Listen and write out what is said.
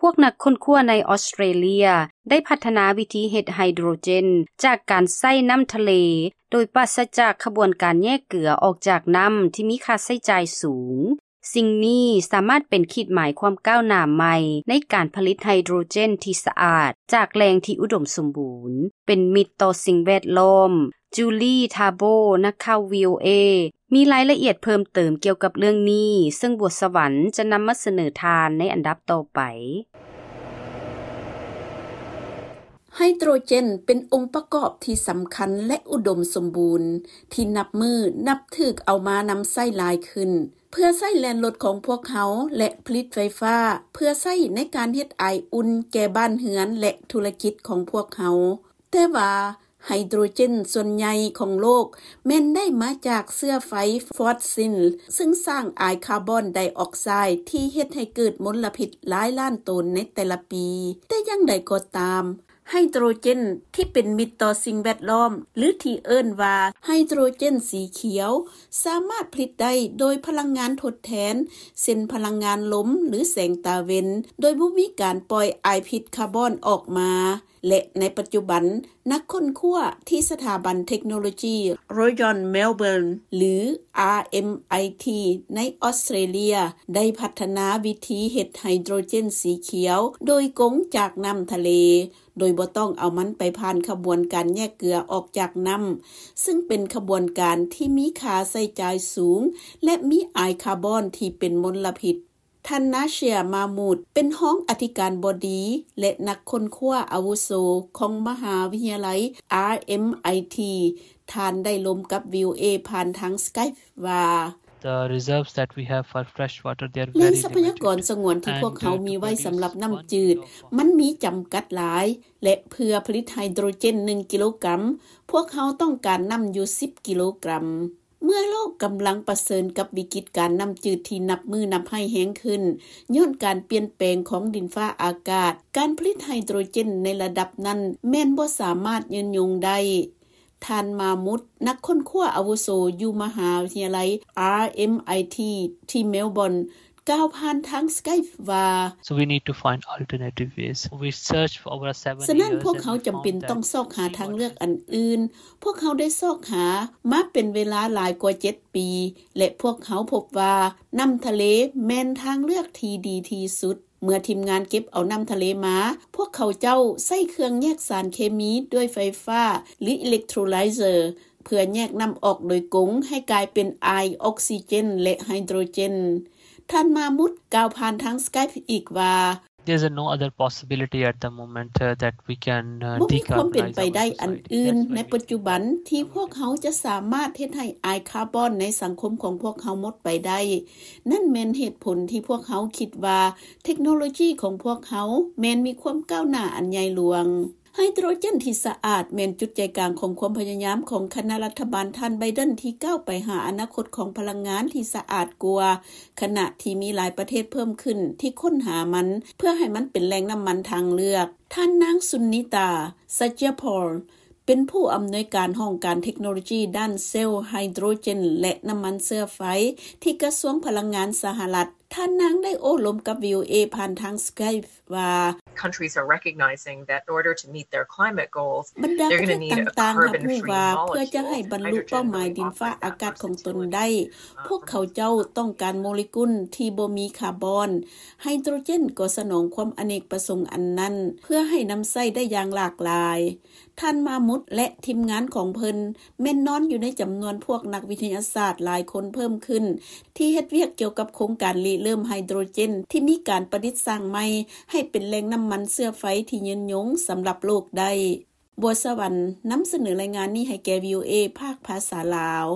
ພວກນັກຄົ້ນຄວ້າໃນອອສເຕຣເລຍໄດ້ພັດທະນາວິທີເຮັດໄຮໂດຣເຈນຈາກການໃຊ້ນ້ຳທະເລ ໂດຍປາສະຈາກຂະບວນການແຍກເກືອອອກຈາກນ້ຳທີ່ມີຄ່າໃຊ້ຈ່າຍສູງ. ສິ່ງນີ້ສາມາດເປັນຂີດໝາຍຄວາມກ້າວໜ້າໃໝ່ໃນການຜະລິດໄຮໂດຣເຈນທີ່ສະອາດຈາກແຫຼ່ງທີ່ອຸດົມສົມບູນ, ເປັນມິດຕໍ່ສິ່ງແວດລ້ອມ. ຈູລີ ທາໂບ ນັກຂ່າວ ວີໂອເອ ມີລາຍລະອຽດເພີ່ມເຕີມກ່ຽວກັບເລື່ອງນີ້, ເຊິ່ງບົວສະຫວັນຈະນຳມາສະເໜີທ່ານໃນອັນດັບຕໍ່ໄປ. ໄຮໂດຣເຈນເປັນອົງປະກອບທີ່ສຳຄັນ ແລະ ອຸດົມສົມບູນ ທີ່ນັບມື້ນັບຖືກເອົາມານຳໃຊ້ຫຼາຍຂຶ້ນ ເພື່ອໃຊ້ແລ່ນລົດຂອງພວກເຮົາ ແລະ ຜະລິດໄຟຟ້າ ເພື່ອໃຊ້ໃນການເຮັດໄອອຸ່ນແກ່ບ້ານເຮືອນ ແລະ ທຸລະກິດຂອງພວກເຮົາ. ແຕ່ວ່າໄຮໂດຣເຈນສ່ວນໃຫຍ່ຂອງໂລກແມ່ນໄດ້ມາຈາກເຊື້ອໄຟຟອດຊິນ ເຊິ່ງສ້າງອາຍຄາບອນໄດອອກໄຊທີ່ເຮັດໃຫ້ເກີດມົນລະພິດຫຼາຍລ້ານໂຕນໃນແຕ່ລະປີ. ແຕ່ຢ່າງໃດກໍຕາມ, ໄຮໂດຣເຈນທີ່ເປັນມິດຕໍ່ສິ່ງແວດລ້ອມ ຫຼື ທີ່ເອີ້ນວ່າໄຮໂດຣເຈນສີຂຽວ ສາມາດຜະລິດໄດ້ໂດຍພະລັງງານທົດແທນ ເຊັ່ນ ພະລັງງານລົມ ຫຼື ແສງຕາເວັນ ໂດຍບໍ່ມີການປ່ອຍອາຍພິດຄາບອນອອກມາ. ແລະ ໃນປັດຈຸບັນ, ນັກຄົ້ນຄວ້າທີ່ສະຖາບັນເທັກໂນໂລຈີ Royal Melbourne ຫຼື RMIT ໃນອອສເຕຣເລຍ ໄດ້ພັດທະນາວິທີເຮັດໄຮໂດຣເຈນສີຂຽວໂດຍກົງຈາກນ້ຳທະເລ, ໂດຍບໍ່ຕ້ອງເອົາມັນໄປຜ່ານຂະບວນການແຍກເກືອອອກຈາກນ້ຳ, ເຊິ່ງເປັນຂະບວນການທີ່ມີຄ່າໃຊ້ຈ່າຍສູງ ແລະ ມີອາຍຄາບອນທີ່ເປັນມົນລະພິດ. ທ່ານ ນາເຊຍ ມາມູດ ເປັນຮອງອະທິການບໍດີ ແລະ ນັກຄົ້ນຄວ້າອາວຸໂສຂອງມະຫາວິທະຍາໄລ RMIT. ທ່ານໄດ້ລົມກັບ VOA ຜ່ານທາງ Skype ວ່າ The reserves that we have for fresh water, they are very limited. ແຫຼ່ງຊັບພະຍາກອນສະຫງວນທີ່ພວກເຮົາມີໄວ້ສຳລັບນ້ຳຈືດ ມັນມີຈຳກັດຫຼາຍ ແລະ ເພື່ອຜະລິດໄຮໂດຣເຈນໜຶ່ງກິໂລກຣາມ, ພວກເຮົາຕ້ອງການນ້ຳຢູ່ສິບກິໂລກຣາມ. ເມື່ອໂລກກຳລັງປະເຊີນກັບວິກິດການນ້ຳຈືດທີ່ນັບມື້ນັບຮ້າຍແຮງຂຶ້ນ ຍ້ອນການປ່ຽນແປງຂອງດິນຟ້າອາກາດ, ການຜະລິດໄຮໂດຣເຈນໃນລະດັບນັ້ນແມ່ນບໍ່ສາມາດຍືນຍົງໄດ້. ທ່ານ ມາມຸດ ນັກຄົ້ນຄວ້າອາວຸໂສຢູ່ມະຫາວິທະຍາໄລ RMIT ທີ່ເມລບອນ ກ່າວຜ່ານທາງ Skype ວ່າ So we need to find alternative ways. We searched for over seven years. ສະນັ້ນ ພວກເຮົາຈຳເປັນຕ້ອງຊອກຫາທາງເລືອກອັນອື່ນ. ພວກເຮົາໄດ້ຊອກຫາມາເປັນເວລາຫຼາຍກວ່າເຈັດປີ ແລະ ພວກເຮົາພົບວ່ານ້ຳທະເລແມ່ນທາງເລືອກທີ່ດີທີ່ສຸດ. ເມື່ອທີມງານເກັບເອົານ້ຳທະເລມາ, ພວກເຂົາເຈົ້າໃຊ້ເຄື່ອງແຍກສານເຄມີດ້ວຍໄຟຟ້າ ຫຼື electrolyzer ເພື່ອແຍກນ້ຳອອກໂດຍກົງໃຫ້ກາຍເປັນອາຍ ອອກຊີເຈນ ແລະ ໄຮໂດຣເຈນ. ທ່ານ ມາມຸດ ກ່າວຜ່ານທາງ Skype ອີກວ່າ There's no other possibility at the moment, uh, that we can, uh, decarbonize our society. ບໍ່ມີຄວາມເປັນໄປໄດ້ອັນອື່ນໃນປັດຈຸບັນທີ່ພວກເຮົາຈະສາມາດເຮັດໃຫ້ອາຍຄາບອນໃນສັງຄົມຂອງພວກເຮົາໝົດໄປໄດ້. ນັ້ນແມ່ນເຫດຜົນທີ່ພວກເຮົາຄິດວ່າເທັກໂນໂລຈີຂອງພວກເຮົາແມ່ນມີຄວາມກ້າວໜ້າອັນໃຫຍ່ຫຼວງ. ໄຮໂດຣເຈນທີ່ສະອາດແມ່ນຈຸດໃຈກາງຂອງຄວາມພະຍາຍາມຂອງຄະນະລັດຖະບານທ່ານ ໄບເດັນ ທີ່ກ້າວໄປຫາອະນາຄົດຂອງພະລັງງານທີ່ສະອາດກວ່າ, ຂະນະທີ່ມີຫຼາຍປະເທດເພີ່ມຂຶ້ນທີ່ຄົ້ນຫາມັນ ເພື່ອໃຫ້ມັນເປັນແຫຼ່ງນ້ຳມັນທາງເລືອກ. ທ່ານນາງ ສຸນນິຕາ ສັດຍະພອນ ເປັນຜູ້ອຳນວຍການຫ້ອງການເທັກໂນໂລຈີດ້ານເຊວໄຮໂດຣເຈນ ແລະ ນ້ຳມັນເຊື້ອໄຟ ທີ່ກະຊວງພະລັງງານສະຫະລັດ. ທ່ານນາງໄດ້ໂອ້ລົມກັບ VOA ຜ່ານທາງ Skype ວ່າ Countries are recognizing that in order to meet their climate goals, ບັນດາປະເທດຕ່າງໆຮັບຮູ້ວ່າ ເພື່ອຈະໃຫ້ບັນລຸເປົ້າໝາຍດິນຟ້າອາກາດຂອງຕົນໄດ້, ພວກເຂົາເຈົ້າຕ້ອງການໂມເລກຸນທີ່ບໍ່ມີຄາບອນ. ໄຮໂດຣເຈນກໍສະໜອງຄວາມອະເນກປະສົງອັນນັ້ນ ເພື່ອໃຫ້ນຳໃຊ້ໄດ້ຢ່າງຫຼາກຫຼາຍ. ທ່ານ ມາມຸດ ແລະ ທີມງານຂອງເພິ່ນແມ່ນນອນຢູ່ໃນຈຳນວນພວກນັກວິທະຍາສາດຫຼາຍຄົນເພີ່ມຂຶ້ນ ທີ່ເຮັດວຽກກ່ຽວກັບໂຄງການລິເລີ່ມໄຮໂດຣເຈນທີ່ມີການປະດິດສ້າງໃໝ່ໃຫ້ເປັນແຫຼ່ງນ້ຳມັນເຊື້ອໄຟທີ່ຍືນຍົງສຳລັບໂລກໄດ້. ບົວສະຫວັນ ນຳສະເໜີລາຍງານນີ້ໃຫ້ແກ່ VOA ພາກພາສາລາວ.